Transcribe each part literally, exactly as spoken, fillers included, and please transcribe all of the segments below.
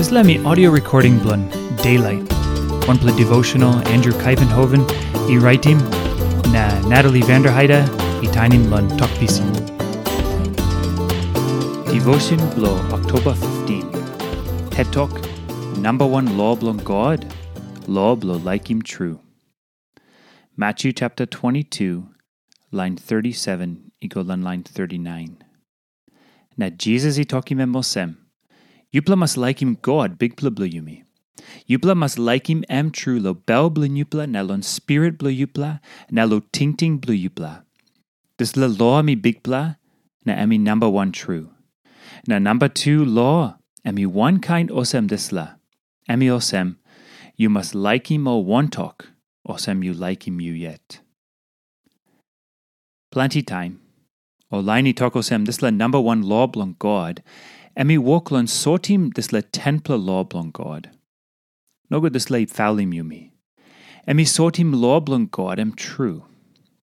Dispela em i audio recording bilong Daylight, wanpela devotional Andrew Kuyvenhoven i raitim, na Natalie Vanderheide i tainim long Tok Pisin. Devotion bilong Oktoba fifteen. Het Tok, namba wan lo bilong God, lo bilong laikim tru. Matthew chapter twenty-two, line thirty-seven i go long line thirty-nine. Na Jisas i tokim em olsem, "Yupela mas laikim God, Bikpela bilong yumi. Yupela mas laikim em tru long bel bilong yupela na long spirit bilong yupela na long tingting bilong yupela. Dispela lo em i bikpela, na em i namba wan tru. Na namba tu lo, em i wankain olsem dispela. Em i olsem, yu mas laikim ol wantok, olsem yu laikim yu yet." Planti taim, ol lain i tok olsem dispela namba wan lo bilong God, em i wok long sotim dispela tenpela lo bilong God. Nogut dispela i paulim yumi. Em i sotim lo bilong God em tru.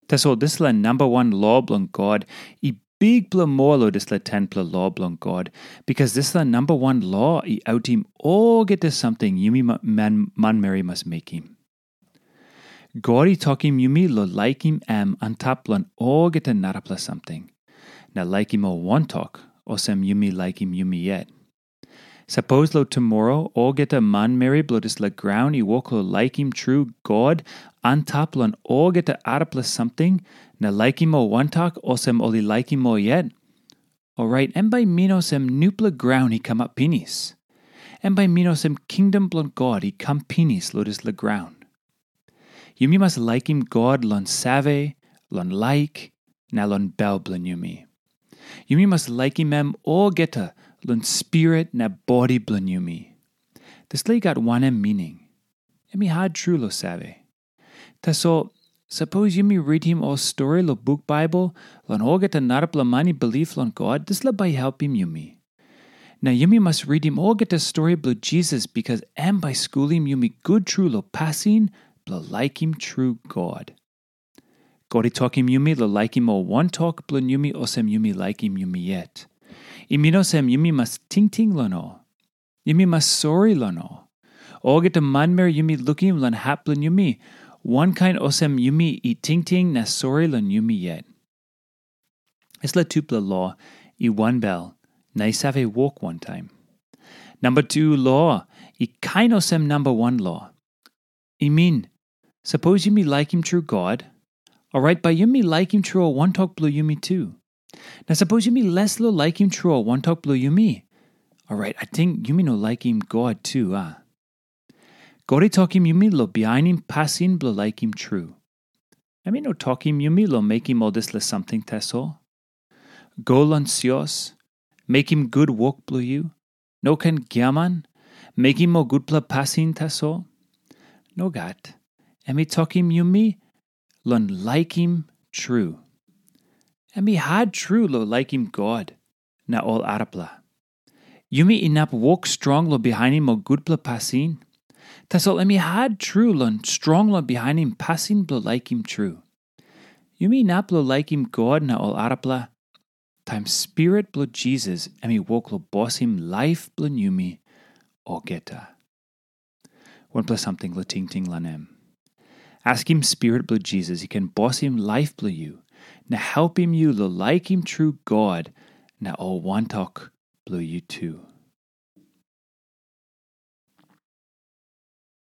Tasol dispela namba wan lo bilong God i bikpela moa long dispela tenpela lo bilong God, bikas dispela namba wan lo i autim olgeta samting yumi ma- man, manmeri mas mekim. God i tokim yumi long laikim em antap long olgeta narapela samting, na laikim ol wantok, olsem yumi laikim yumi yet. Sapos long tumora olgeta manmeri bilong dispela graun i wok long laikim tru God antap long olgeta arapela samting, na laikim ol wantok olsem ol i laikim ol yet, orait em bai i min olsem nupela graun i kamap pinis. Em bai i min olsem kingdom bilong God i kam pinis long dispela graun. Yumi mas laikim God long save, long laik, na long bel bilong yumi. Yumi mas laikim em olgeta long spirit na bodi bilong yumi. Dispela i gat wanem mining? Em i hat tru long save. Tasol, sapos yumi ritim ol stori long buk Baibel long olgeta narapela man i bilip long God, dispela bai i helpim yumi. Na yumi mas ritim olgeta stori bilong Jisas, bikas em bai i skulim yumi gut tru long pasin bilong laikim tru God. God i tokim yumi long laikim ol wantok bilong yumi olsem yumi laikim yumi yet. I min olsem yumi mas tingting long ol. Yumi mas sori long ol. Olgeta manmeri yumi lukim long hap bilong yumi, wankain olsem yumi i tingting na sori long yumi yet. Dispela tupela lo i wanbel na i save wok wantaim. Namba tu lo i kain olsem namba wan lo. I min, sapos yumi laikim tru God, orait bai yumi laikim tru ol wantok bilong yumi tu. Na sapos yumi les long laikim tru ol wantok bilong yumi, orait ating yumi no laikim God tu, a? God i tokim yumi long bihainim pasin bilong laikim tru. Em i no tokim yumi long mekim ol dispela samting tasol. Go long sios, mekim gut wok bilong yu, no ken giaman, mekim ol gutpela pasin tasol. Nogat, em i tokim yumi long laikim tru. Em i hat tru long laikim God na ol arapela. Yumi inap wok strong long bihainim ol gutpela pasin, tasol em i hat tru long strong long bihainim pasin bilong laikim tru. Yumi inap long laikim God na ol arapela, taim Spirit bilong Jisas em i wok long bosim laip bilong yumi olgeta. Wanpela samting long tingting long em. Askim Spirit bilong Jisas i ken bosim laip bilong yu na helpim yu long laikim tru God na ol wantok bilong yu tu.